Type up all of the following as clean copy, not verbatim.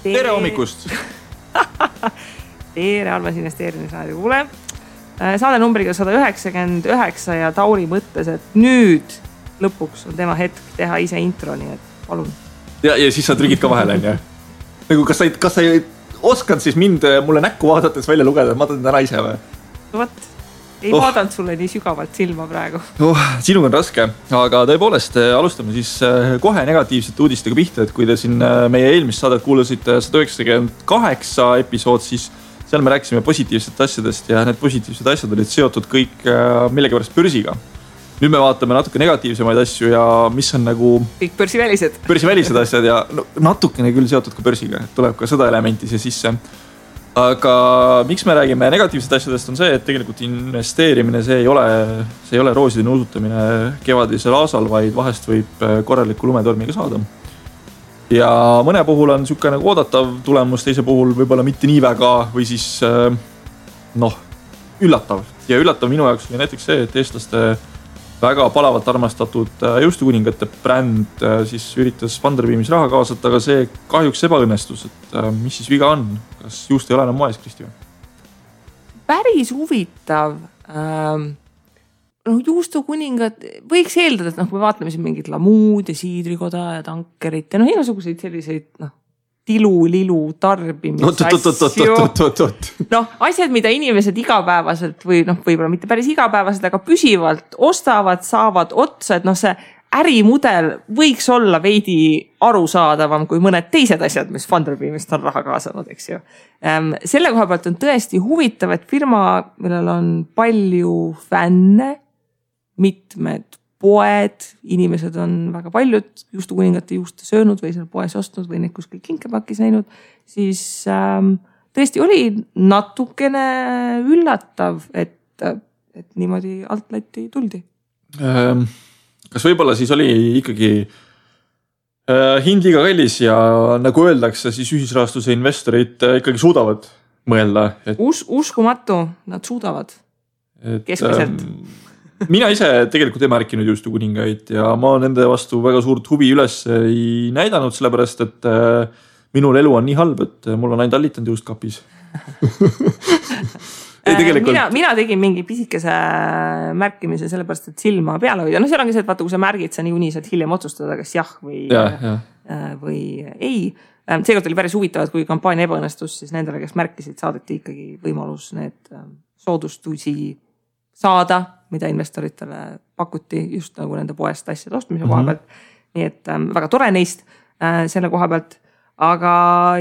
Tere hommikust! Tere, Almas investeerimisraadio kuule. Saade numbriga 199 ja Tauri mõttes, et nüüd lõpuks on tema hetk teha ise intro, nii et palun. Ja siis sa trügid ka vahele, on. Nagu kas sa ei oskad siis mulle näkku vaadates välja lugeda, et ma teen täna ise või? Võt, ei vaadanud sulle nii sügavalt silma praegu. Sinuga on raske, aga tõepoolest alustame siis kohe negatiivsete uudistega pihta, et kui te siin meie eelmist saadet kuulasite 198 episood, siis seal me rääkisime positiivsete asjadest ja need positiivsed asjad olid seotud kõik millegipärast börsiga. Nüüd me vaatame natuke negatiivsemaid asju ja mis on nagu... Kõik börsivälised asjad ja natukene küll seotud ka börsiga, tuleb ka seda elementi siia sisse. Aga miks me räägime negatiivsed asjadest on see, et tegelikult investeerimine, see ei ole rooside nuusutamine kevadisel aasal, vaid vahest võib korraliku lumetormiga saada. Ja mõne puhul on niisugune nagu oodatav tulemus, teise puhul võib-olla mitte nii väga või siis üllatav. Ja üllatav minu jaoks oli näiteks see, et eestlaste väga palavalt armastatud juustukuningate bränd siis üritas Funderbeamis raha kaasata, aga see kahjuks ebaõnnestus, et mis siis viga on? Kas juust ei ole enam moes, Kristi? Päris huvitav. Juustukuningad, võiks eeldada, et kui vaatame siin mingit Lamuud ja Siidrikoda ja Tankerit ja igasuguseid selliseid tilu-lilu tarbimisasju. Asjad, mida inimesed igapäevaselt või võib-olla mitte päris igapäevaselt, aga püsivalt ostavad, saavad otsa, et see ärimudel võiks olla veidi arusaadavam kui mõned teised asjad, mis Funderbeamist on raha kaasanud, eks ju. Selle koha pealt on tõesti huvitav, et firma, millel on palju fänne, mitmed poed, inimesed on väga paljud juustukuningate juuste söönud või seal poes ostnud või neid kuskil kinkepakis näinud, siis tõesti oli natukene üllatav, et niimoodi altlatti tuldi. Kas võib-olla siis oli ikkagi hind liiga kallis ja nagu öeldakse, siis ühisrahastuse investorid ikkagi suudavad mõelda? Uskumatu, nad suudavad keskmiselt. Mina ise tegelikult ei märkinud juustukuningaid ja ma nende vastu väga suurt huvi üles ei näidanud, sellepärast, et minul elu on nii halb, et mul on ainult allitanud juustkapis. Mina tegin mingi pisikese märkimise sellepärast, et silma peale hoida. Seal ongi see, et vaata, kui sa märgid, sa niikuinii saad hiljem otsustada, kas jah või ei. Seekord oli päris huvitav, et kui kampaania ebaõnnestus, siis nendele, kes märkisid, saadeti ikkagi võimalus need soodustusi saada, mida investoritele pakuti just nagu nende poest asjade ostmise koha pealt. Nii et väga tore neist selle koha pealt. Aga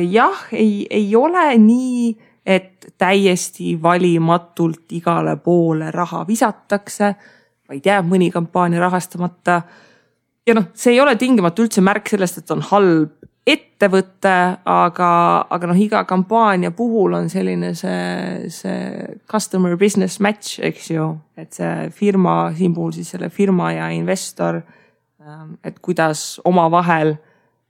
jah, ei ole nii, et täiesti valimatult igale poole raha visatakse, vaid jääb mõni kampaania rahastamata. Ja see ei ole tingimata üldse märk sellest, et on halb ettevõtte, aga iga kampaania puhul on selline see customer business match, eks ju, et see firma, siin puhul siis selle firma ja investor, et kuidas oma vahel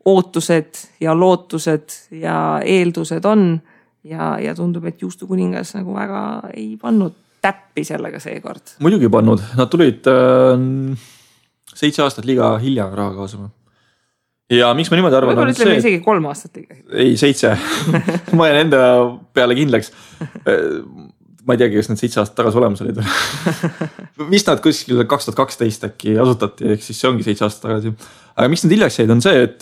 ootused ja lootused ja eeldused on ja tundub, et juustukuningas nagu väga ei pannud täppi sellega seekord. Muidugi pannud, nad tulid 7 aastat liiga hilja raha kaasama. Ja miks ma niimoodi arvan? Võib-olla ütleme isegi 3 aastat liiga. Ei, 7. Ma jään enda peale kindlaks. Ma ei teagi, kas need 7 aastat tagasi olemas olid. Mis nad kuskil 2012 äkki asutati, ehk siis see ongi 7 aastat tagasi. Aga miks nad hiljaks jäid on see, et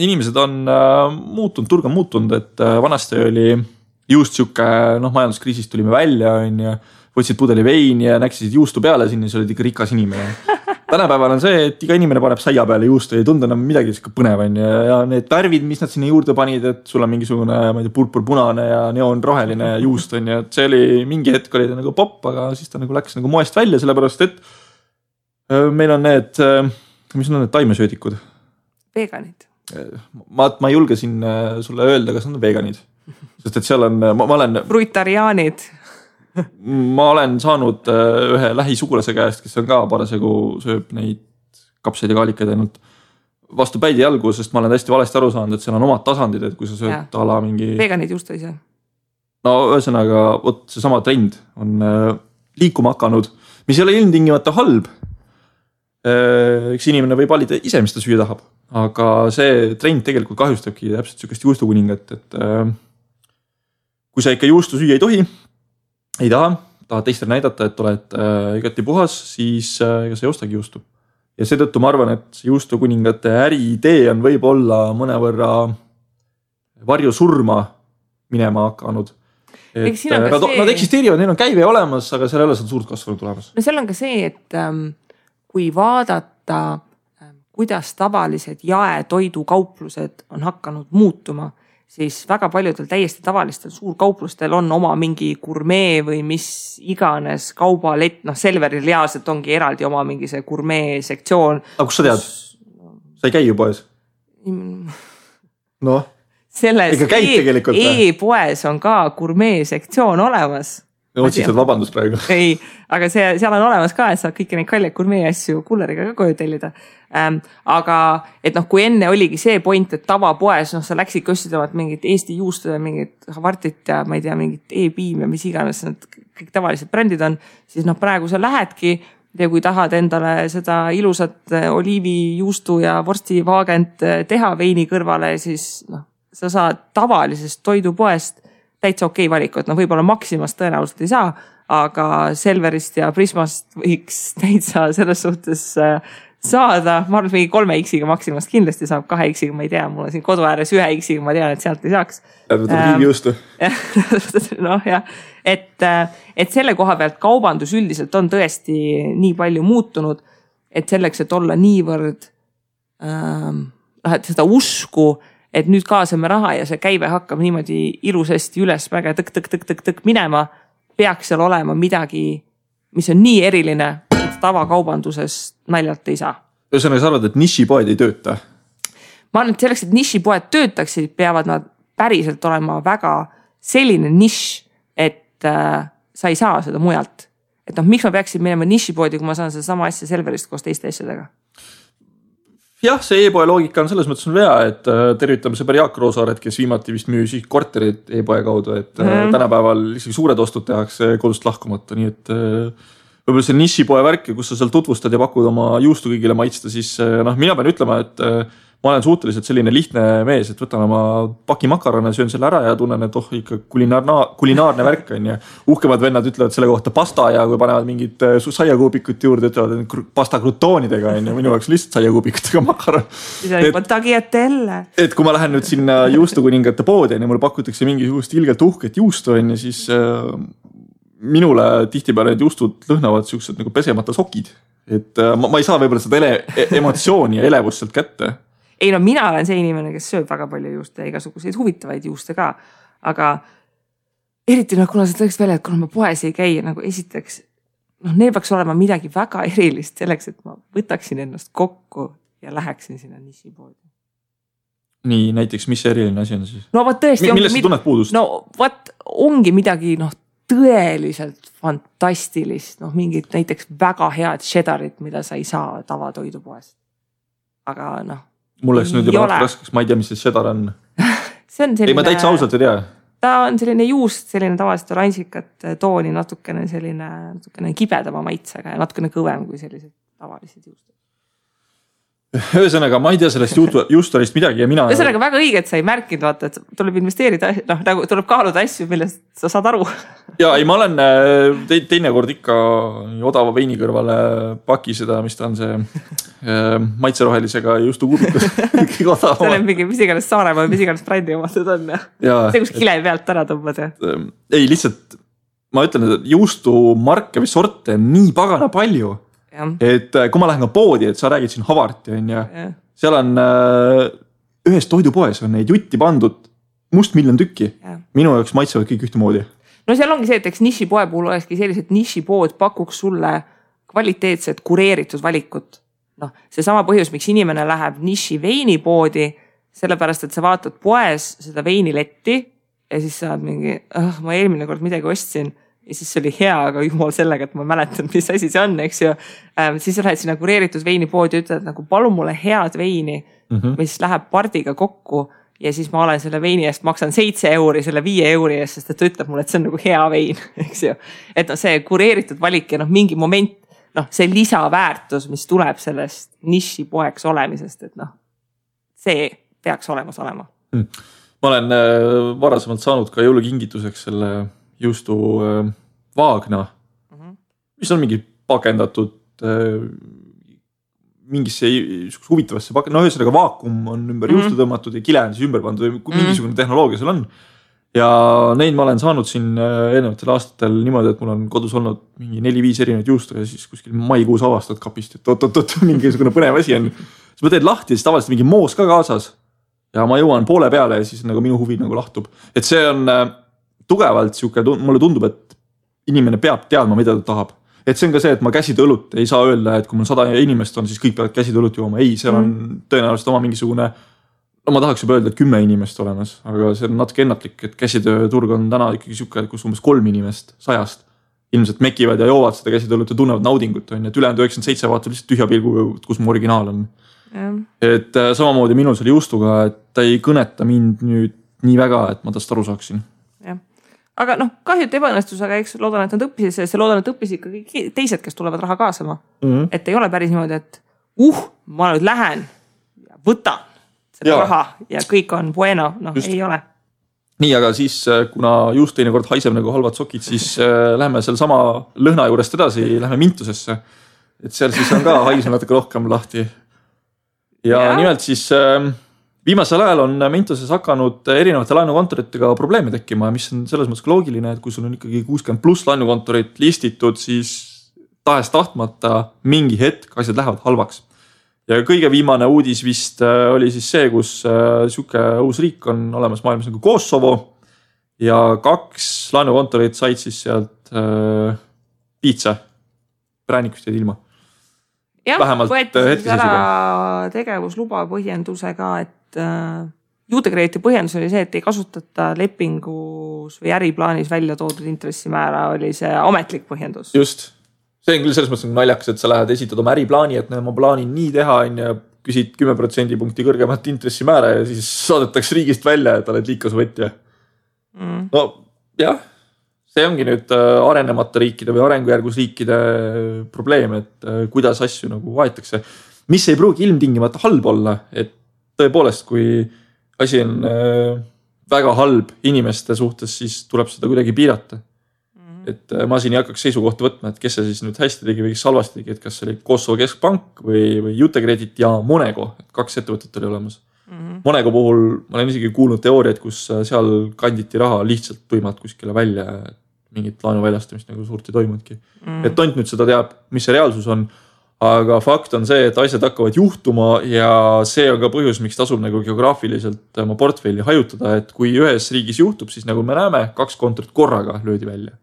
inimesed on muutunud, turg on muutunud, et vanasti oli just siuke, majanduskriisist tulime välja, võtsid pudeli veini ja näksisid juustu peale sinna, see olid ikka rikas inimene. Tänapäeval on see, et iga inimene paneb saia peale juustu, ei tunda enam midagi põnev ja need värvid, mis nad sinna juurde panid, et sul on mingisugune purpur-punane ja neonroheline juust on ja see oli mingi hetk oli ta nagu popp, aga siis ta nagu läks nagu moest välja, sellepärast et meil on need, mis on need taimesöödikud? Veganid. Ma ei julge siin sulle öelda, kas on veganid, sest et seal on, ma olen... Fruitariaanid. Ma olen saanud ühe lähisugulase käest, kes on ka parasjagu sööb neid kapseid ja kaalikaid ainult vastu päidi jalgu, sest ma olen hästi valesti aru saanud, et seal on omad tasandid, et kui sa sööd ala mingi... Veganid just ei saa. Ühesõnaga, see sama trend on liikuma hakanud, mis ei ole ilmtingimata halb. Üks inimene võib valida ise, mis ta süüa tahab. aga see trend tegelikult kahjustabki täpselt sellist juustukuningat, et kui sa ikka juustu süüa ei tohi, ei tahad teistele näidata, et oled igati puhas, siis ega sa ei ostagi juustu. Ja seetõttu ma arvan, et juustukuningate äriidee on võib-olla mõnevõrra varju surma minema hakanud. Nad eksisteerivad, neil on käive olemas, aga seal ei ole suurt kasvanud tulemas. No seal on ka see, et kui vaadata, kuidas tavalised jaetoidukauplused on hakanud muutuma, siis väga paljudel täiesti tavalistel suurkauplustel on oma mingi gurmee või mis iganes kaubalett, Selveril reaalselt ongi eraldi oma mingi see gurmee sektsioon. Aga kus sa tead? Sa ei käi ju poes? Noh, ega käid tegelikult? E-poes on ka gurmee sektsioon olemas. Otsitad vabandust praegu. Ei, aga seal on olemas ka, et saad kõiki neid kalleid gurmee asju kulleriga ka koju tellida. Aga et kui enne oligi see point, et tavapoes, sa läksid köstidavad mingit Eesti juustu ja mingit Havartit ja ma ei tea, mingit E-piim ja mis iganes need kõik tavalised brändid on, siis praegu sa lähedki ja kui tahad endale seda ilusat oliivijuustu ja vorstivaagent teha veini kõrvale, siis sa saad tavalisest toidupoest täitsa okei valiku, et võib-olla Maximast tõenäoliselt ei saa, aga Selverist ja Prismast võiks täitsa selles suhtes saada. Ma arvan, et 3X-iga Maximast kindlasti saab, 2X-iga ma ei tea, mul on siin kodu ääres 1X-iga, ma tean, et sealt ei saaks. Riigijuustu. Et selle koha pealt kaubandus üldiselt on tõesti nii palju muutunud, et selleks, et olla niivõrd et seda usku, et nüüd kaasame raha ja see käive hakkab niimoodi ilusasti üles väga tõk minema, peaks seal olema midagi, mis on nii eriline, et tavakaubanduses naljalt ei saa. Ühesõnaga, sa arvad, et nišipoed ei tööta? Ma arvan, et selleks, et nišipoed töötaksid, peavad nad päriselt olema väga selline nišš, et sa ei saa seda mujalt. Et miks ma peaksin minema nišipoodi, kui ma saan seda sama asja Selverist koos teiste asjadega? Jah, see e-poe loogika on selles mõttes on vea, et tervitame sõber Jaak Roosaaret, kes viimati vist müüs korterid e-poe kaudu, et tänapäeval isegi suured ostud tehakse kodust lahkumata, nii et võib-olla see nišipoe värk, kus sa seal tutvustad ja pakud oma juustu kõigile maitsta, siis mina pean ütlema, et ma olen suhteliselt selline lihtne mees, et võtan oma paki makarone, söön selle ära ja tunnen, et ikka kulinaarne värk on ja uhkemad vennad ütlevad selle kohta pasta ja kui panevad mingid saiakuubikut juurde, ütlevad, et pasta krutoonidega on ja minu jaoks lihtsalt saiakuubikutega makaron. Et kui ma lähen nüüd sinna juustukuningate poodi ja mul pakutakse mingisugust ilgelt uhket juustu on ja siis minule tihtipeale need juustud lõhnavad siuksed nagu pesemata sokid. Et ma ei saa võib-olla seda emotsiooni ja elevust sealt kätte. Ei mina olen see inimene, kes sööb väga palju juuste ja igasuguseid huvitavaid juuste ka, aga eriti kuna sa tõeks välja, et kuna ma poes ei käi, esiteks, neil peaks olema midagi väga erilist selleks, et ma võtaksin ennast kokku ja läheksin sinna nišipoodi. Nii, näiteks, mis see eriline asi on siis? No võt tõesti millest sa tunned puudust? No võt ongi midagi tõeliselt fantastilist, mingid näiteks väga head cheddarit, mida sa ei saa tavatoidupoest. Aga mul oleks nüüd juba raskeks, ma ei tea, mis see cheddar on. See on selline... Ei, ma täitsa ausalt ei tea. Ta on selline juust, selline tavaliselt oransikat tooni, natukene kibedama maitsega ja natukene kõvem kui sellised tavalised juustud. Ühesõnaga, ma ei tea sellest juustorist midagi ja mina... Ühesõnaga väga õige, et sa ei märkinud, vaata, et tuleb investeerida, tuleb kaaluda asju, millest sa saad aru. Ja ei, ma olen teine kord ikka odava veini kõrvale paki seda, mis ta on see maitserohelisega juustukuubikus. See on mingi mis iganes Saaremaa, mis iganes brändi omatud on. See, kus kile pealt ära tõmbad. Ei, lihtsalt ma ütlen, et juustumarke või sorte on nii pagana palju. Et kui ma lähen ka poodi, et sa räägid siin Havarti on ja seal on ühes toidupoes on neid jutti pandud must miljon tükki. Minu jaoks maitsevad kõik ühtemoodi. No seal ongi see, et eks nišipoe puhul olekski sellised nišipood pakuks sulle kvaliteetset kureeritud valikut. See sama põhjus, miks inimene läheb niši veinipoodi, sellepärast, et sa vaatad poes seda veiniletti ja siis saad mingi, ma eelmine kord midagi ostsin ja siis see oli hea, aga jumal sellega, et ma mäletan, mis asi see on, eks ju. Siis sa lähed sinna kureeritud veinipoodi ja ütled, palun mulle head veini, mis läheb pardiga kokku ja siis ma olen selle veini eest, maksan 7 euri selle 5 euri eest, sest et ta ütleb mulle, et see on nagu hea vein, eks ju. Et see kureeritud valik ja mingi moment, see lisaväärtus, mis tuleb sellest nišipoeks olemisest, et see peaks olemas olema. Ma olen varasemalt saanud ka jõulukingituseks selle juustu vaagna, mis on mingi pakendatud mingisse huvitavasse ühesõnaga vaakum on ümber juustu tõmmatud ja kile on siis ümber pandud, mingisugune tehnoloogia seal on. Ja neid ma olen saanud siin eelnevatel aastatel niimoodi, et mul on kodus olnud mingi 4-5 erinevaid juustu ja siis kuskil maikuus avastad kapist, et oot, mingisugune põnev asi on. Siis ma teed lahti ja siis tavaliselt mingi moos ka kaasas. Ja ma jõuan poole peale ja siis nagu minu huvi nagu lahtub. Et see on tugevalt siuke, mulle tundub, et inimene peab teadma, mida ta tahab. Et see on ka see, et ma käsitöölut ei saa öelda, et kui mul 100 inimest on, siis kõik peavad käsitöölut jooma. Ei, seal on tõenäoliselt oma mingisugune, no ma tahaks juba öelda, et 10 inimest olemas, aga see on natuke ennatlik, et käsitööturg on täna ikkagi siuke, kus umbes 3 inimest 100 ilmselt mekivad ja joovad seda käsitöölut ja tunnevad naudingut, on, et ülejäänud 97 vaatab lihtsalt tühja pilgu, kus mu originaal on. Et samamoodi minul selle juustuga, et ta ei kõneta mind nüüd nii väga, et ma tast aru saaksin. Ja. Aga kahju, et ebaõnnestus, aga eks loodan, et nad õppisid sellest ja loodan, et õppisid ka kõik teised, kes tulevad raha kaasama. Et ei ole päris niimoodi, et ma nüüd lähen ja võtan seda raha ja kõik on bueno, ei ole. Nii, aga siis kuna juust teinekord haiseb nagu halvad sokid, siis lähme seal sama lõhna juurest edasi, lähme Mintusesse. Et seal siis on ka haisem natuke rohkem lahti. Ja nimelt siis viimasel ajal on Mintuses hakanud erinevate laenukontoritega probleeme tekkima, mis on selles mõttes loogiline, et kui sul on ikkagi 60+ laenukontorit listitud, siis tahes tahtmata mingi hetk asjad lähevad halvaks. Ja kõige viimane uudis vist oli siis see, kus siuke uus riik on olemas maailmas nagu Kosovo ja 2 laenukontorit said siis sealt piitsa. Präänikust jäid ilma. Jah, võeti ära tegevusluba põhjendusega, et juutekreediti põhjendus oli see, et ei kasutata lepingus või äriplaanis välja toodud intressimäära, oli see ametlik põhjendus. Just. See on küll selles mõttes naljakas, et sa lähed esitad oma äriplaani, et ma plaanin nii teha ja küsid 10% punkti kõrgemat intressimäära ja siis saadetakse riigist välja, et oled liikasvõtja. No jah, see ongi nüüd arenemata riikide või arengujärgus riikide probleem, et kuidas asju nagu vaetakse. Mis ei pruugi ilmtingimata halb olla, et tõepoolest, kui asi on väga halb inimeste suhtes, siis tuleb seda kuidagi piirata. Et ma siin ei hakkaks seisukohta võtma, et kes see siis nüüd hästi tegi või kes halvasti tegi, et kas see oli Kosovo keskpank või Jutekredit ja Monego, et 2 ettevõtet oli olemas. Monego puhul ma olen isegi kuulnud teooriaid, kus seal kanditi raha lihtsalt tuimalt kuskile välja, mingit laenu väljastamist nagu suurt ei toimudki. Et tont nüüd seda teab, mis see reaalsus on, aga fakt on see, et asjad hakkavad juhtuma ja see on ka põhjus, miks tasub nagu geograafiliselt oma portfelli hajutada, et kui ühes riigis juhtub, siis nagu me näeme, 2 kontorit korraga löödi välja.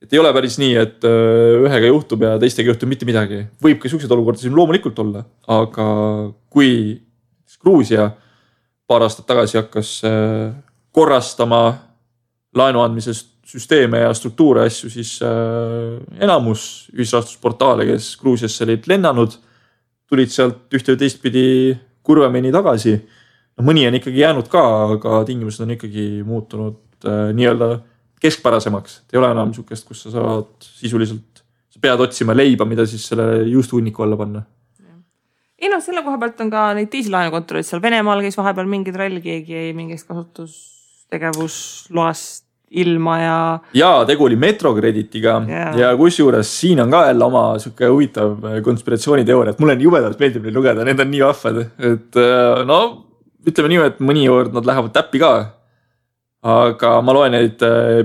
Et ei ole päris nii, et ühega juhtub ja teistega juhtub mitte midagi. Võib ka sellised olukorda siin loomulikult olla, aga kui Gruusia paar aastat tagasi hakkas korrastama laenu andmise süsteeme ja struktuure asju, siis enamus ühisrahastusportaale, kes Gruusiasse olid lennanud, tulid sealt ühte või teistpidi kurvemini tagasi. No, mõni on ikkagi jäänud ka, aga tingimused on ikkagi muutunud nii-öelda keskpärasemaks. Ei ole enam sukest, kus sa saad sisuliselt, sa pead otsima leiba, mida siis selle juustuhunniku alla panna. Ei selle koha pealt on ka neid teisi laenukontoreid seal Venemaal käis vahepeal mingi trall, keegi ei mingist kasutustegevusloast ilma ja tegu oli Metrokreditiga ja kusjuures siin on ka jälle oma siuke huvitav konspiratsiooniteooria, et mulle jubedalt meeldib neid lugeda, need on nii vahvad, et ütleme nii, et mõnikord nad lähevad täppi ka. Aga ma loen neid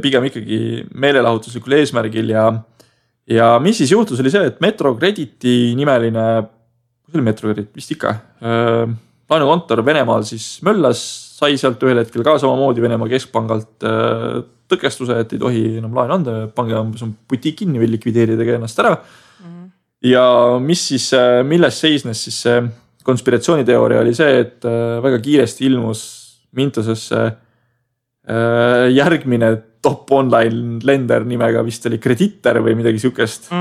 pigem ikkagi meelelahutuslikul eesmärgil ja mis siis juhtus oli see, et Metrokrediti nimeline, kus oli Metrokredit, vist ikka, laenukontor Venemaal siis möllas, sai sealt ühel hetkel ka samamoodi Venemaa keskpangalt tõkestuse, et ei tohi enam laenu anda, pange on butik kinni või likvideeridagi ennast ära. Ja mis siis, milles seisnes siis see konspiratsiooniteooria oli see, et väga kiiresti ilmus Mintusesse järgmine top online lender nimega vist oli Kreditter või midagi siukest.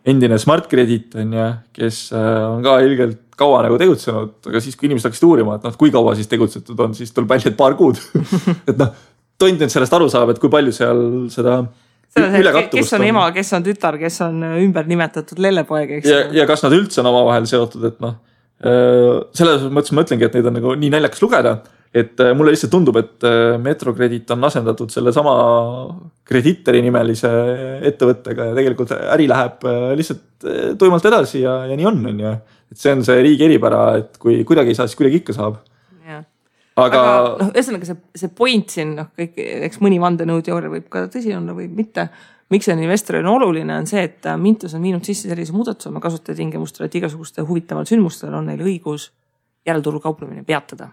Endine Smart Credit on ja, kes on ka ilgelt kaua nagu tegutsenud, aga siis kui inimesed hakkasid uurima, et kui kaua siis tegutsetud on, siis tuleb välja, et paar kuud. Et tont nüüd sellest aru saab, et kui palju seal seda ülekattuvust kes on ema, kes on tütar, kes on ümber nimetatud lellepoeg, eks? Ja kas nad üldse on oma vahel seotud, et selles mõttes ma ütlengi, et neid on nagu nii naljakas lugeda, et mulle lihtsalt tundub, et Metrokredit on asendatud selle sama Kreditori nimelise ettevõttega ja tegelikult äri läheb lihtsalt tuimalt edasi ja nii on ju. Et see on see riigi eripära, et kui kuidagi ei saa, siis kuidagi ikka saab. Aga ühesõnaga see point siin, kõik, eks mõni vandenõuteooria võib ka tõsi olla või mitte. Miks see investoril on oluline, on see, et Mintos on viinud sisse sellise muudatuse oma kasutajatingimustele, et igasuguste huvitaval sündmustel on neil õigus järelturul kauplemine peatada.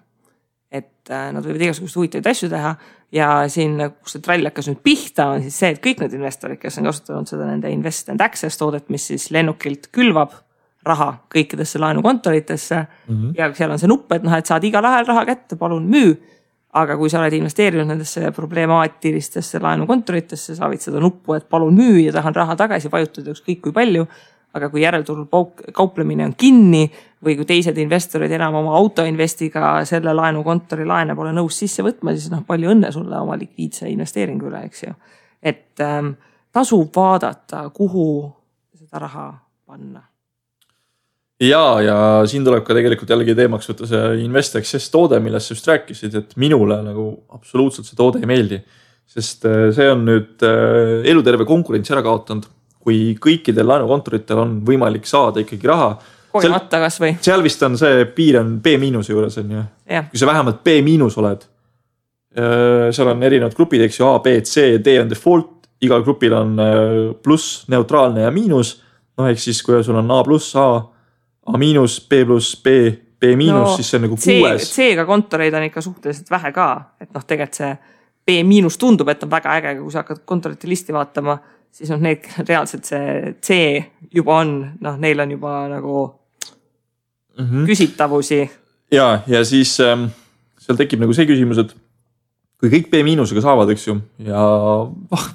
Et nad võivad igasuguste huvitavaid asju teha ja siin, kus see trall hakkas nüüd pihta, on siis see, et kõik need investorid, kes on kasutanud seda nende Invest and Access toodet, mis siis lennukilt külvab raha kõikidesse laenukontoritesse ja seal on see nupp, et et saad igal ajal raha kätte, palun müü. Aga kui sa oled investeerinud nendesse problemaatilistesse laenukontoritesse, sa võid seda nuppu, et palun müü ja tahan raha tagasi vajutada ükskõik kui palju. Aga kui järelturul kauplemine on kinni või kui teised investorid enam oma autoinvestiga selle laenukontori laene pole nõus sisse võtma, siis palju õnne sulle oma likviidse investeeringu üle, eks ju. Et tasub vaadata, kuhu seda raha panna. Ja siin tuleb ka tegelikult jällegi teemaks võtta see Invest Access toode, millest sa just rääkisid, et minule nagu absoluutselt see toode ei meeldi. Sest see on nüüd eluterve konkurentsi ära kaotanud, kui kõikidel laenukontoritel on võimalik saada ikkagi raha. Kogemata kas või? Seal vist on see piir on B- juures on ju. Kui sa vähemalt B- oled, seal on erinevad grupid, eks ju, A, B, C, D on default, igal grupil on pluss, neutraalne ja miinus. Ehk siis, kui sul on A+, A, A-, B+, B, B-, siis see on nagu 6. C-ga kontoreid on ikka suhteliselt vähe ka, et tegelikult see B- tundub, et on väga äge, kui sa hakkad kontorite listi vaatama, siis need reaalselt see C juba on, neil on juba nagu küsitavusi. Ja siis seal tekib nagu see küsimus, et kui kõik B- saavad, eks ju, ja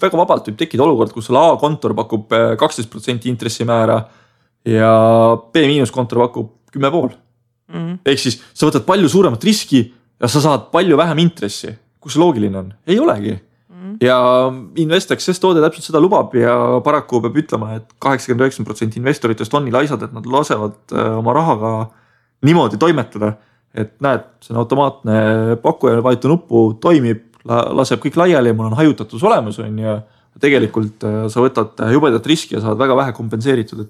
väga vabalt võib tekkida olukord, kus sul A-kontor pakub 12% intressimäära ja B- kontor pakub 10,5. Ehk siis sa võtad palju suuremat riski ja sa saad palju vähem intressi. Kus see loogiline on? Ei olegi. Ja Invest Access toode täpselt seda lubab ja paraku peab ütlema, et 89% investoritest on nii laisad, et nad lasevad oma rahaga niimoodi toimetada, et näed, see on automaatne pakkuja, vajuta nuppu, toimib, laseb kõik laiali ja mul on hajutatus olemas ja tegelikult sa võtad jubedat riski ja saad väga vähe kompenseeritud.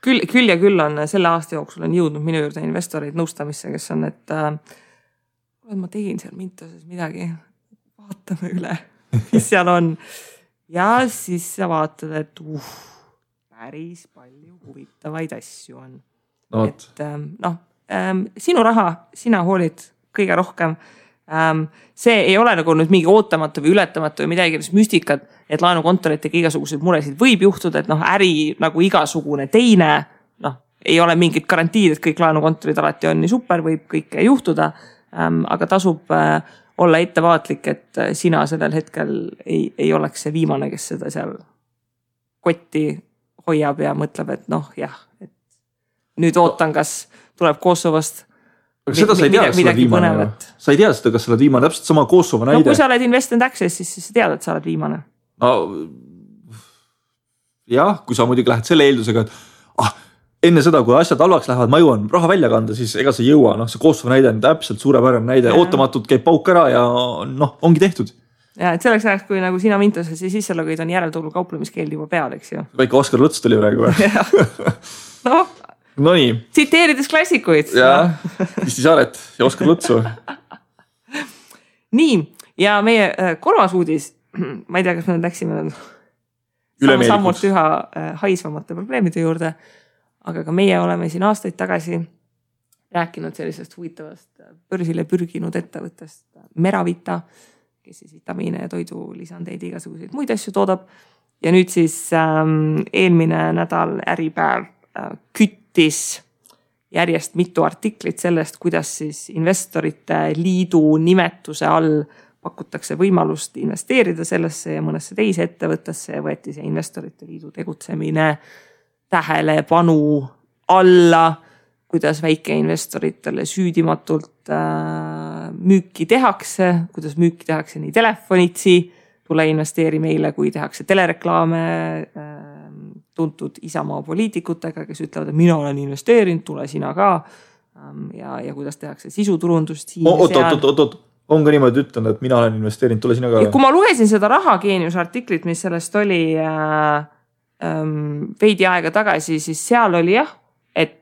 Küll ja küll on selle aasta jooksul on jõudnud minu juurde investoreid nõustamisse, kes on, et ma tegin seal Mintoses midagi, vaatame üle, mis seal on. Ja siis sa vaatad, et päris palju huvitavaid asju on. Et sinu raha, sina hoolid kõige rohkem. See ei ole nagu nüüd mingi ootamatu või ületamatu või midagi müstikat, et laenukontoritega igasuguseid muresid võib juhtuda, et äri nagu igasugune teine, ei ole mingit garantiid, et kõik laenukontorid alati on nii super, võib kõike juhtuda, aga tasub olla ettevaatlik, et sina sellel hetkel ei oleks see viimane, kes seda seal kotti hoiab ja mõtleb, et et nüüd ootan, kas tuleb Kosovost aga seda sa ei tea, kas sa oled viimane. Sa ei tea seda, kas sa oled viimane, täpselt sama Kosovo näide. Kui sa oled Invest and Access, siis sa tead, et sa oled viimane. Jah, kui sa muidugi lähed selle eeldusega, et enne seda, kui asjad halvaks lähevad, ma jõuan raha välja kanda, siis ega sa ei jõua. See Kosovo näide on täpselt suurepärane näide. Ootamatult käib pauk ära ja ongi tehtud. Ja, et selleks ajaks, kui nagu sina Mintoses ja sisselogid on järelturul kauplemiskeeld juba peal, eks ju. Väike Oskar Luts tuli praegu. No nii. Tsiteerides klassikuid. Ja, Kristi Saaret ja Oskar Lutsu. Nii, ja meie kolmas uudis, ma ei tea, kas me läksime sammult üha haisvamate probleemide juurde, aga ka meie oleme siin aastaid tagasi rääkinud sellisest huvitavast börsile pürginud ettevõttest Meravita, kes siis vitamiine ja toidulisandeid igasuguseid muid asju toodab. Ja nüüd siis eelmine nädal Äripäev küttis järjest mitu artiklit sellest, kuidas siis investorite liidu nimetuse all pakutakse võimalust investeerida sellesse ja mõnesse teise ettevõttesse ja võeti see investorite liidu tegutsemine tähelepanu alla, kuidas väikeinvestoritele süüdimatult müüki tehakse, kuidas müüki tehakse nii telefonitsi, tule investeeri meile, kui tehakse telereklaame tuntud Isamaa poliitikutega, kes ütlevad, et mina olen investeerinud, tule sina ka. ja kuidas tehakse sisuturundust siin oot, on ka niimoodi ütlenud, et mina olen investeerinud, tule sina ka. Kui ma lugesin seda Rahageeniuse artiklit, mis sellest oli veidi aega tagasi, siis seal oli et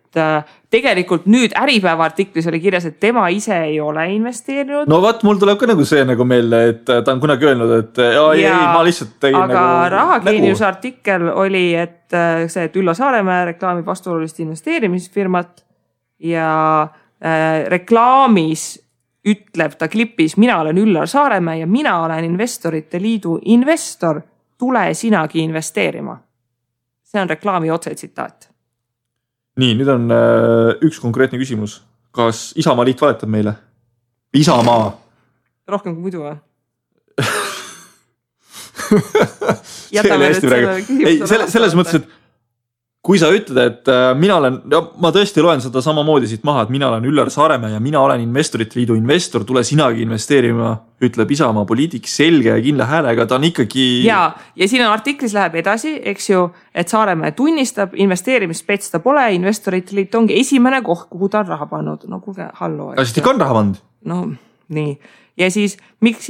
tegelikult nüüd Äripäeva artiklis oli kirjas, et tema ise ei ole investeerinud. No vaat, mul tuleb ka nagu see nagu meelde, et ta on kunagi öelnud, et ei, ma lihtsalt tegin aga nagu Rahageeniuse artikkel oli, et see, et Üllar Saaremäe reklaamib vastuolulist investeerimisfirmat ja reklaamis ütleb ta klipis, mina olen Üllar Saaremäe ja mina olen Investorite Liidu investor, tule sinagi investeerima. See on reklaami otsetsitaat. Nii, nüüd on üks konkreetne küsimus. Kas Isamaa liit valetab meile? Isamaa. Rohkem kui muidu või? Selles mõttes, et kui sa ütled, et mina olen, ma tõesti loen seda samamoodi siit maha, et mina olen Üllar Saaremäe ja mina olen Investorite Liidu investor, tule sinagi investeerima, ütleb Isamaa poliitik selge ja kindla häälega, ta on ikkagi... Ja siin on artiklis läheb edasi, eks ju, et Saaremäe tunnistab, investeerimisspets ta pole, Investorite Liit ongi esimene koht, kuhu ta on raha pannud. No kuulge, hallo. Aga siis ta on raha pannud? No nii. Ja siis miks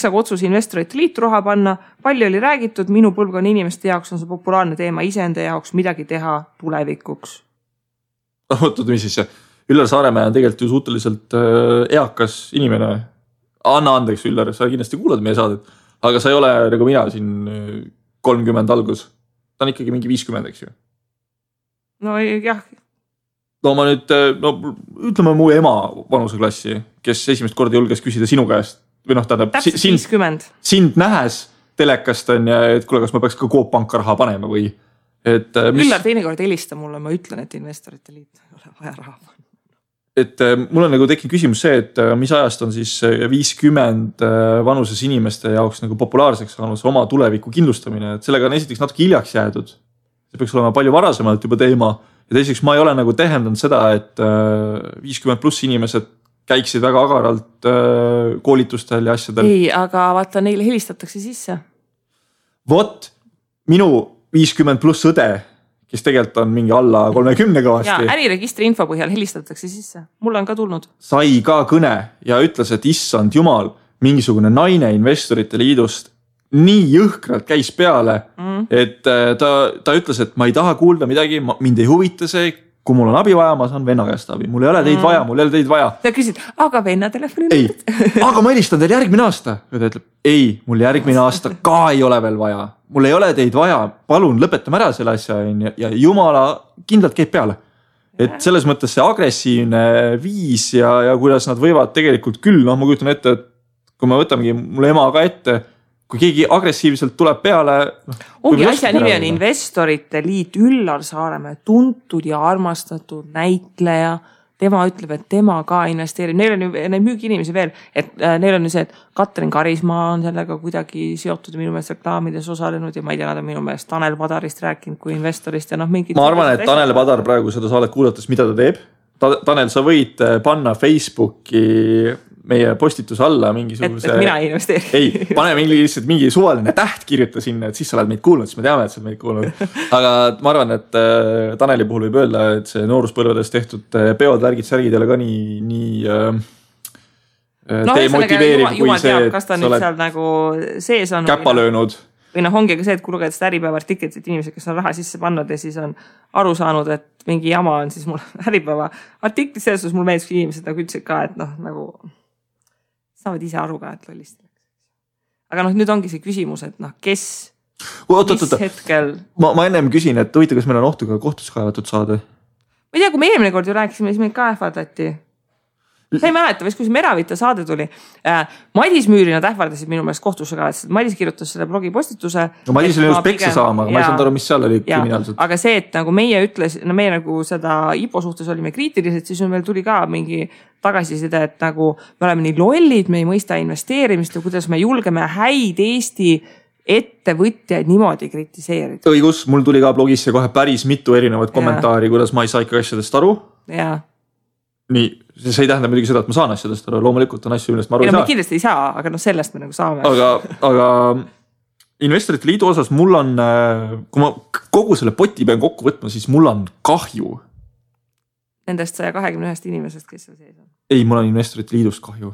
aga otsus Investorite Liitu raha panna, palju oli räägitud, minu põlvkonna inimeste jaoks on see populaarne teema iseenda jaoks midagi teha tulevikuks. Ootad, mis siis? Üllar Saaremäe on tegelikult ju suhteliselt eakas inimene. Anna andeks, Üllar, sa kindlasti kuulad meie saadet, aga sa ei ole nagu mina siin 30 algus. Ta on ikkagi mingi 50, eks ju? No jah. No ma nüüd, ütleme mu ema vanuseklassi, kes esimest korda julges küsida sinu käest. Või tähendab, sind nähes telekast on ja et kuule, kas ma peaks ka Coop Panka raha panema või... Üllar teinekord helista mulle, ma ütlen, et Investorite Liit ei ole vaja raha panema. Et mul on nagu tekkinud küsimus see, et mis ajast on siis 50 vanuses inimeste jaoks nagu populaarseks saanud oma tuleviku kindlustamine. Et sellega on esiteks natuke hiljaks jäädud. See peaks olema palju varasemalt juba teema. Ja teiseks ma ei ole nagu tähendanud seda, et 50 pluss inimesed käiksid väga agaralt koolitustel ja asjadel. Ei, aga vaata, neile helistatakse sisse. Vot, minu 50 pluss õde, kes tegelikult on mingi alla 30 kõvasti. Ja äriregistri info põhjal helistatakse sisse. Mulle on ka tulnud. Sai ka kõne ja ütles, et issand jumal, mingisugune naine Investorite Liidust nii jõhkralt käis peale, et ta ütles, et ma ei taha kuulda midagi, mind ei huvita see, kui mul on abi vaja, ma saan venna käest abi. Mul ei ole teid vaja, mul ei ole teid vaja. Ta küsid, aga venna telefoni ei, aga ma helistan teil järgmine aasta. Ja ta ütleb, ei, mul järgmine aasta ka ei ole veel vaja. Mul ei ole teid vaja, palun lõpetame ära selle asja ja jumala kindlalt käib peale. Et selles mõttes see agressiivne viis ja kuidas nad võivad tegelikult küll, ma kujutan ette, et kui me võtamegi mul ema ka ette, kui keegi agressiivselt tuleb peale... Ongi asja nimi on Investorite Liit, Üllar Saaremäe, tuntud ja armastatud näitleja. Tema ütleb, et tema ka investeerib. Neil on ju müügi inimesi veel, et neil on ju see, et Katrin Karismaa on sellega kuidagi seotud ja minu meelest reklaamides osalenud ja ma ei tea, nad on minu meelest Tanel Padarist rääkinud kui investorist ja mingid... Ma arvan, et Tanel Padar praegu seda saadet kuulates, mida ta teeb. Tanel, sa võid panna Facebooki meie postituse alla mingisuguse... Et mina ei investeeri. Ei, pane mingi suvaline täht kirjuta sinna, et siis sa oled meid kuulnud, siis me teame, et sa oled meid kuulnud. Aga ma arvan, et Taneli puhul võib öelda, et see nooruspõlvedes tehtud peod, värgid, särgid ei ole ka nii demotiveeriv kui see, et kas ta nüüd seal nagu sees on... Käpa löönud. Või ongi ka see, et kui lugeda seda Äripäeva artiklit, et inimesed, kes on raha sisse pannud ja siis on aru saanud, et mingi jama on, siis mul Äripäeva artiklit selles, mul meeldis inimesed nagu ütlesid ka, et nagu saavad ise aru ka, et lollist. Aga nüüd ongi see küsimus, et kes hetkel... Ma ennem küsin, et huvita, kas meil on ohtu ka kohtus kaevatud saada? Ma ei tea, kui me eelmine kord ju rääkisime, siis meid ka ähvardati. Sa ei mäleta, kui see Meravita saade tuli. Madis Müüri nad ähvardasid minu meelest kohtusse ka, et Madis kirjutas selle blogipostituse. No Madis oli just peksa saama, aga ma ei saanud aru, mis seal oli kriminaalselt. Aga see, et nagu meie ütles, meie nagu seda IPO suhtes olime kriitilised, siis meil tuli ka mingi tagasiside, et nagu me oleme nii lollid, me ei mõista investeerimist ja kuidas me julgeme häid Eesti ettevõtjaid niimoodi kritiseerida. Õigus, mul tuli ka blogisse kohe päris mitu erinevat kommentaari, kuidas ma ei saa ikka asjadest aru. Jaa. Nii, see ei tähenda muidugi seda, et ma saan asjadest aru, loomulikult on asju, millest ma aru ei saa. Me kindlasti ei saa, aga sellest me nagu saame. Aga Investorite Liidu osas mul on, kui ma kogu selle poti pean kokku võtma, siis mul on kahju. nendest 121 inimesest, kes seal sees on? Ei, mul on Investorite Liidust kahju.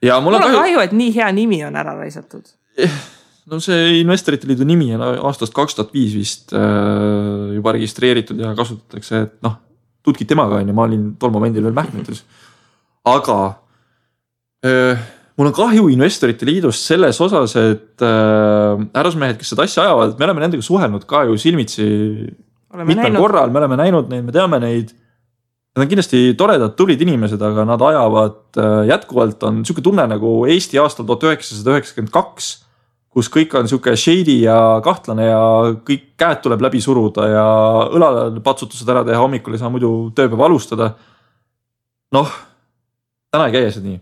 Ja mul on kahju, et nii hea nimi on ära raisatud. No see Investorite Liidu nimi on aastast 2005 vist juba registreeritud ja kasutatakse, et noh, tutkid temaga on ja ma olin tol momendil veel Mähkmetes. Aga mul on kahju Investorite Liidust selles osas, et härrasmehed, kes seda asja ajavad, me oleme nendega suhelnud ka ju silmitsi mitmel korral, me oleme näinud neid, me teame neid. Nad on kindlasti toredad, tublid inimesed, aga nad ajavad jätkuvalt on niisugune tunne nagu Eesti aastal 1992, kus kõik on niisugune shady ja kahtlane ja kõik käed tuleb läbi suruda ja õlale patsutused ära teha, hommikul ei saa muidu tööpäeva alustada. Noh, täna ei käi see nii.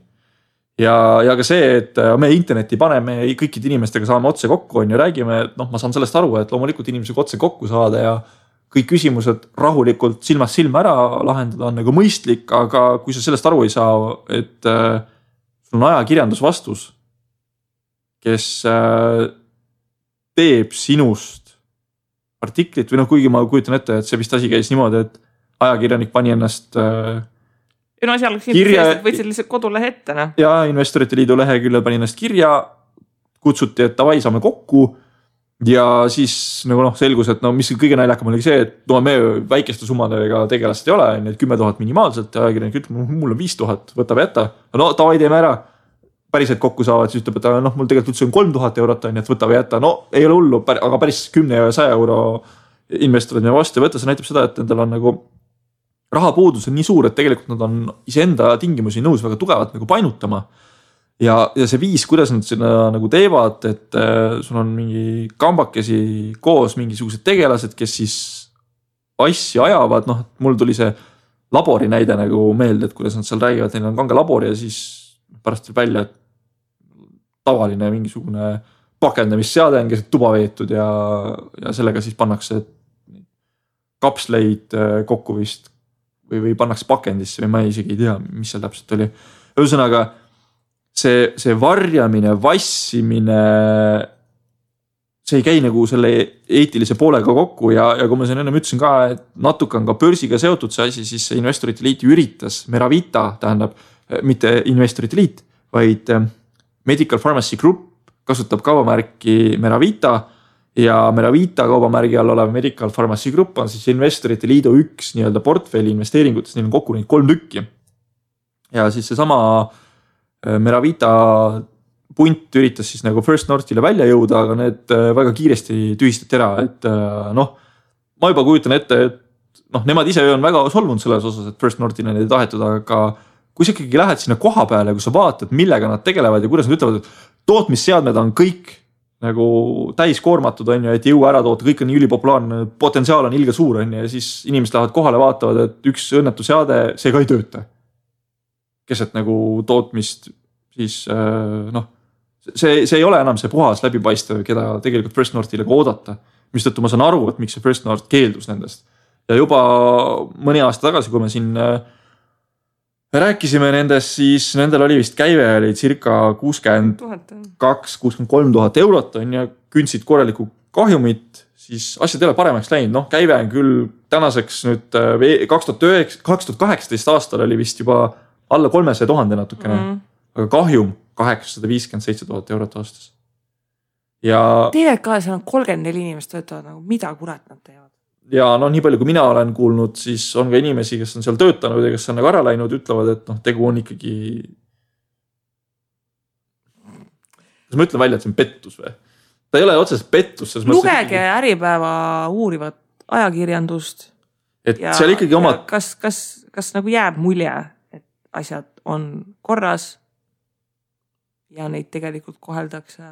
Ja ka see, et me interneti paneme kõikide inimestega saame otse kokku on ja räägime, et noh, ma saan sellest aru, et loomulikult inimesega otse kokku saada ja kõik küsimused rahulikult silmast silma ära lahendada on nagu mõistlik, aga kui sa sellest aru ei saa, et sul on ajakirjandus vastus, kes teeb sinust artiklit või noh, kuigi ma kujutan ette, et see vist asi käis niimoodi, et ajakirjanik pani ennast no seal võtsid lihtsalt kodulehe ette. No. Ja Investorite Liidu leheküljel pani ennast kirja, kutsuti, et davai, saame kokku ja siis nagu noh, selgus, et no mis kõige naljakam oli see, et no me väikeste summadega tegelast ei ole, et 10 000 minimaalselt ja ajakirjanik ütleb, mul on 5000, võta või jätta. No davai, teeme ära. Päriselt kokku saavad, siis ütleb, et noh, mul tegelikult üldse on 3000 eurot, et võta või jätta. No ei ole hullu, aga päris 10 ja 100 euro investorid me vastu võtta, see näitab seda, et nendel on nagu rahapuudus on nii suur, et tegelikult nad on iseenda tingimusi nõus väga tugevalt nagu painutama. Ja see viis, kuidas nad seda nagu teevad, et sul on mingi kambakesi koos mingisugused tegelased, kes siis asju ajavad. Noh, mul tuli see labori näide nagu meelde, et kuidas nad seal räägivad, neil on kanga labor ja siis pärast tuleb välja, et tavaline mingisugune pakendamisseade on keset tuba veetud ja sellega siis pannakse kapsleid kokku vist või pannakse pakendisse või ma isegi ei tea, mis seal täpselt oli. Ühesõnaga, see varjamine, vassimine, see ei käi nagu selle eetilise poolega kokku ja kui ma siin ennem ütlesin ka, et natuke on ka börsiga seotud see asi, siis Investorite Liit üritas, Meravita tähendab, mitte Investorite Liit, vaid Medical Pharmacy Group kasutab kaubamärki Meravita ja Meravita kaubamärgi all olev Medical Pharmacy Group on siis Investorite Liidu üks nii-öelda portfelli investeeringutes, neil on kokku neid 3 tükki. Ja siis see sama Meravita punt üritas siis nagu First Northile välja jõuda, aga need väga kiiresti tühistati ära, et noh, ma juba kujutan ette, et noh, nemad ise on väga solvunud selles osas, et First Northile neid ei tahetud, aga kui sa ikkagi lähed sinna koha peale, kui sa vaatad, millega nad tegelevad ja kuidas nad ütlevad, et tootmisseadmed on kõik nagu täiskoormatud on ju, et jõua ära toota, kõik on nii ülipopulaarne, potentsiaal on ilge suur on ja siis inimesed lähevad kohale vaatavad, et üks õnnetu seade, see ka ei tööta. Keset nagu tootmist, siis noh, see ei ole enam see puhas läbipaistev, keda tegelikult First Northile ka oodata, mistõttu ma saan aru, et miks see First North keeldus nendest. Ja juba mõni aasta tagasi, kui me siin rääkisime nendest, siis nendel oli vist käive oli circa 62-63 000 eurot on ja kündsid korraliku kahjumit, siis asjad ei ole paremaks läinud. Noh, käive on küll tänaseks nüüd 2018 aastal oli vist juba alla 300 000 natukene, aga kahjum 857 000 eurot aastas. Ja TVK seal on 34 inimest töötavad, nagu mida kurat nad teevad? Ja no nii palju, kui mina olen kuulnud, siis on ka inimesi, kes on seal töötanud ja kes on nagu ära läinud, ütlevad, et noh, tegu on ikkagi. Kas ma ütlen välja, et see on pettus või? Ta ei ole otseselt pettus. Lugege Äripäeva uurivat ajakirjandust. Et seal ikkagi oma. Kas nagu jääb mulje, et asjad on korras ja neid tegelikult koheldakse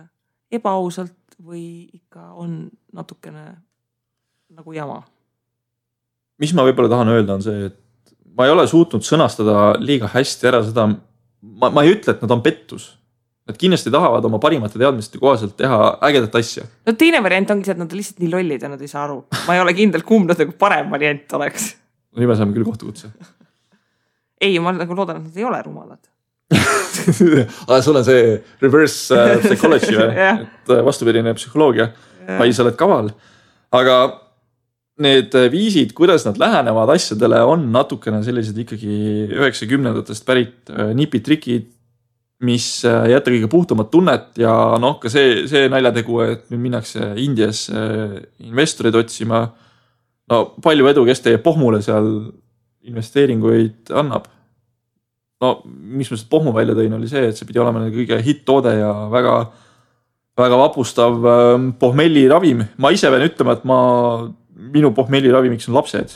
ebaausalt või ikka on natukene nagu jama? Mis ma võib-olla tahan öelda on see, et ma ei ole suutnud sõnastada liiga hästi ära seda, ma ei ütle, et nad on pettus. Nad kindlasti tahavad oma parimate teadmiste kohaselt teha ägedat asja. No teine variant ongi see, et nad on lihtsalt nii lollid ja nad ei saa aru. Ma ei ole kindel, kumb nad nagu parem variant oleks. No nii me saame küll kohtukutse. Ei, ma nagu loodan, et nad ei ole rumalad. Aga sul on see reverse psychology või? Et vastupidine psühholoogia. Vai sa oled kaval. Aga need viisid, kuidas nad lähenevad asjadele, on natukene sellised ikkagi 90-ndatest pärit nipitrikid, mis jätta kõige puhtamat tunnet ja noh, ka see naljategu, et nüüd minnakse Indias investorid otsima. No palju edu, kes teie pohmule seal investeeringuid annab. No, mis ma seda pohmu välja tõin, oli see, et see pidi olema kõige hitt-toode ja väga, väga vapustav pohmelli ravim. Ma ise pean ütlema, et minu pohmelli ravimiks on lapsed.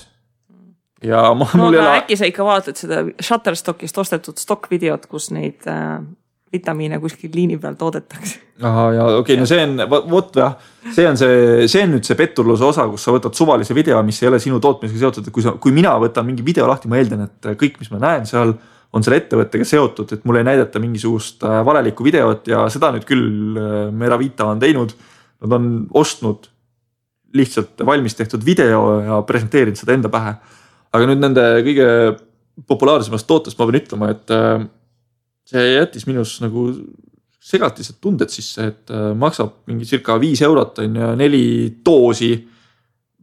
Ja äkki sa ikka vaatad seda Shutterstockist ostetud stock-videot, kus neid vitamiine kuskil liini peal toodetakse. Aha, ja okei, no see on, see on nüüd see petturluse osa, kus sa võtad suvalise video, mis ei ole sinu tootmisega seotud. Kui mina võtan mingi video lahti, ma eeldan, et kõik, mis ma näen seal, on selle ettevõttega seotud, et mulle ei näidata mingisugust valelikku videot ja seda nüüd küll Meravita on teinud. Nad on ostnud lihtsalt valmis tehtud video ja presenteerinud seda enda pähe. Aga nüüd nende kõige populaarsemast tootest ma pean ütlema, et see jättis minus nagu segatised tunded sisse, et maksab mingi circa 5 eurot on ja 4 doosi,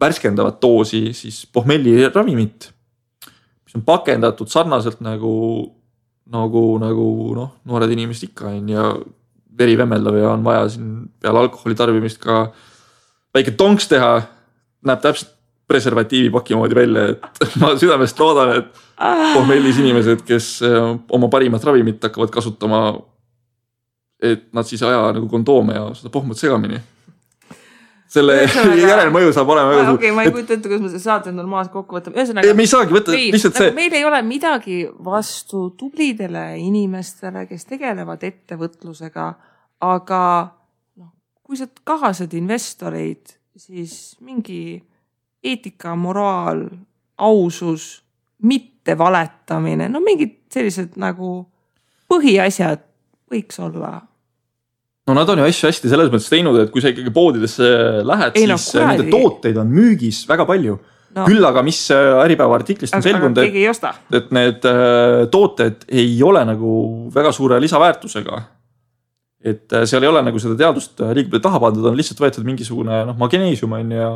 värskendavat doosi, siis pohmelli ravimit, mis on pakendatud sarnaselt nagu noored inimesed ikka on ja veri vemmeldav ja on vaja siin peale alkoholi tarbimist ka väike tonks teha, näeb täpselt preservatiivi paki moodi välja, et ma südamest loodan, et pohmellis inimesed, kes oma parimat ravimit hakkavad kasutama, et nad siis aja nagu kondoome ja seda pohmut segamini. Selle järelmõju saab olema. Okei, ma ei kujuta ette, kuidas me seda saate normaalselt kokku võtame. Me ei saagi võtta lihtsalt see. Meil ei ole midagi vastu tublidele inimestele, kes tegelevad ettevõtlusega, aga kui sa kahased investoreid, siis mingi eetika, moraal, ausus, mitte valetamine, no mingid sellised nagu põhiasjad võiks olla. No nad on ju asju hästi selles mõttes teinud, et kui sa ikkagi poodidesse lähed, siis nende tooteid on müügis väga palju. No. Küll aga mis Äripäeva artiklist on selgunud, et need tooted ei ole nagu väga suure lisaväärtusega. Et seal ei ole nagu seda teadust liiga palju taha pandud, on lihtsalt võetud mingisugune magneesium on ja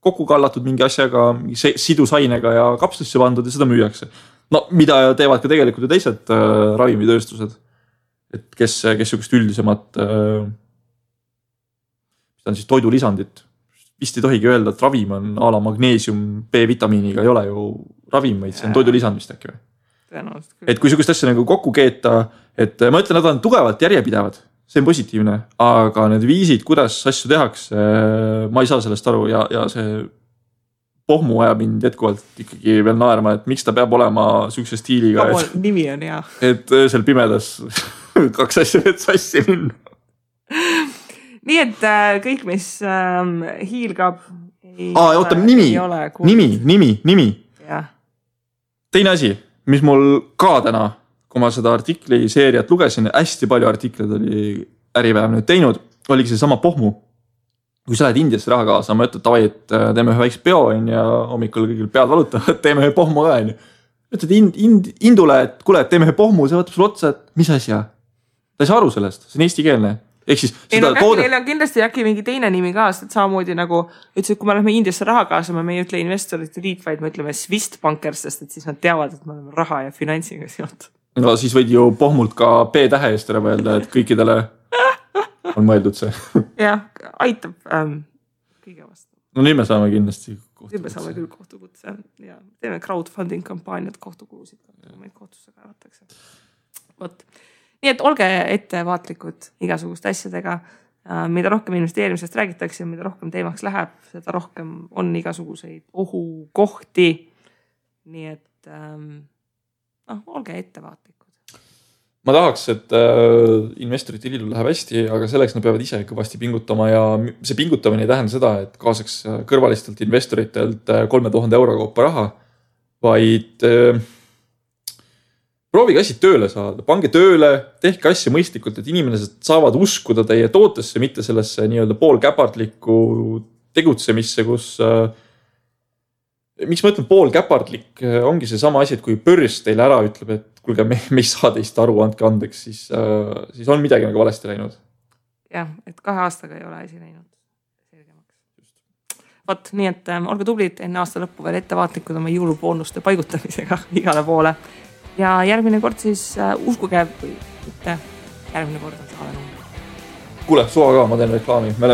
kokku kallatud mingi asjaga, sidusainega ja kapslisse pandud ja seda müüakse. No mida teevad ka tegelikult ju teised ravimitööstused, et kes sihukest üldisemat mis on siis toidulisandit. Vist ei tohigi öelda, et ravim on a la magneesium B-vitamiiniga, ei ole ju ravim, vaid see on toidulisand vist äkki või? Et kui sihukest asja nagu kokku keeta, et ma ütlen, nad on tugevalt järjepidevad, see on positiivne, aga need viisid, kuidas asju tehakse, ma ei saa sellest aru ja see pohmu ajab mind jätkuvalt ikkagi veel naerma, et miks ta peab olema sihukese stiiliga. Nimi on hea. Et öösel pimedas 2 asja et sassi minna. Nii et kõik, mis hiilgab oota, nimi. Ja. Teine asi, mis mul ka täna, kui ma seda artikli seeriat lugesin, hästi palju artikleid oli Äripäev nüüd teinud, oligi see sama pohmu. Kui sa lähed Indiasse raha kaasa, ma ütlen, et teeme ühe väikse peo ja hommikul kõigil pead valutavad, teeme ühe pohmu ka. Ütled Indule, et kuule, teeme ühe pohmu, see võtab sul otsa, et mis asja? Ta ei saa aru sellest, see on eestikeelne. Neil on kindlasti äkki mingi teine nimi ka, et samamoodi nagu ütles, et kui me lähme Indiasse raha kaasama, me ei ütle investorite liit, vaid me ütleme Swist-bankers, sest et siis nad teavad, et me oleme raha ja finantsiga seotud. No siis võid ju pohmult ka P-tähe eest ära öelda, et kõikidele on mõeldud see. Jah, aitab kõige vastu. No nüüd me saame kindlasti kohtukutse. Nüüd me saame küll kohtukutse ja teeme crowdfunding kampaaniat kohtukulusid, meid kohtusse kaevatakse. Vot. Nii et olge ettevaatlikud igasuguste asjadega, mida rohkem investeerimisest räägitakse, mida rohkem teemaks läheb, seda rohkem on igasuguseid ohukohti. Nii et olge ettevaatlikud. Ma tahaks, et investorite liidul läheb hästi, aga selleks nad peavad ise kõvasti pingutama ja see pingutamine ei tähenda seda, et kaasaks kõrvalistelt investoritelt 3000 euro kaupa raha, vaid proovige asjad tööle saada, pange tööle, tehke asja mõistlikult, et inimesed saavad uskuda teie tootesse, mitte sellesse nii-öelda poolkäpardlikku tegutsemisse, kus miks ma ütlen poolkäpardlik, ongi see sama asi, et kui börs teile ära ütleb, et kuulge, me ei saa teist aru, andke andeks, siis on midagi nagu valesti läinud. Jah, et 2 aastaga ei ole asi läinud selgemaks. Võt, nii et olge tublid enne aasta lõppu veel ettevaatlikud oma jõuluboonuste paigutamisega igale poole. Ja järgmine kord siis uskuge või mitte, järgmine kord on saade number. Kuule, suva ka, ma teen reklaami. Me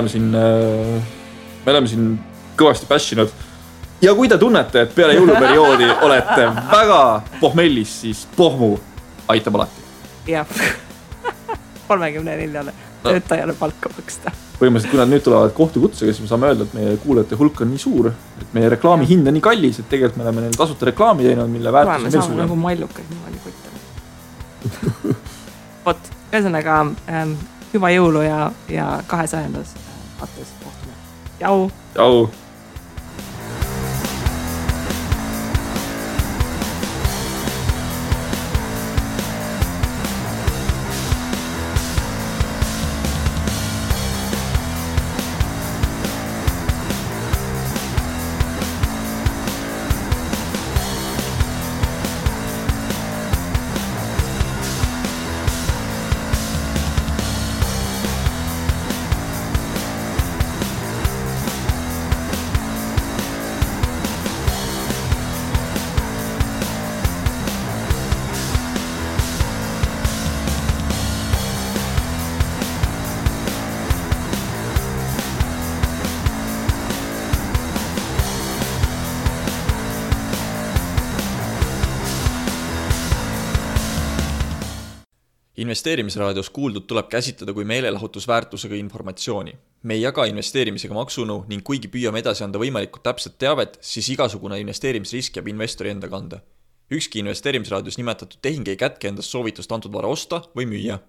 oleme siin kõvasti pässinud. Ja kui te tunnete, et peale jõuluperioodi olete väga pohmellis, siis pohmu aitab alati. Jah, 34 töötajale palka maksta. Põhimõtteliselt, kui nad nüüd tulevad kohtukutsega, siis me saame öelda, et meie kuulajate hulk on nii suur, et meie reklaami hind on nii kallis, et tegelikult me oleme neil tasuta reklaami teinud, mille väärtus on veel suurem. Me saame nagu mallukad niimoodi kottama. Vot, ühesõnaga hüva jõulu ja 200. Saates kohtume. Jau! Jau! Investeerimisraadios kuuldud tuleb käsitleda kui meelelahutusväärtusega informatsiooni. Me ei jaga investeerimisega maksunu ning kuigi püüame edasi anda võimalikult täpset teavet, siis igasugune investeerimisrisk jääb investori enda kanda. Ükski investeerimisraadios nimetatud tehing ei kätke endast soovitust antud vara osta või müüa.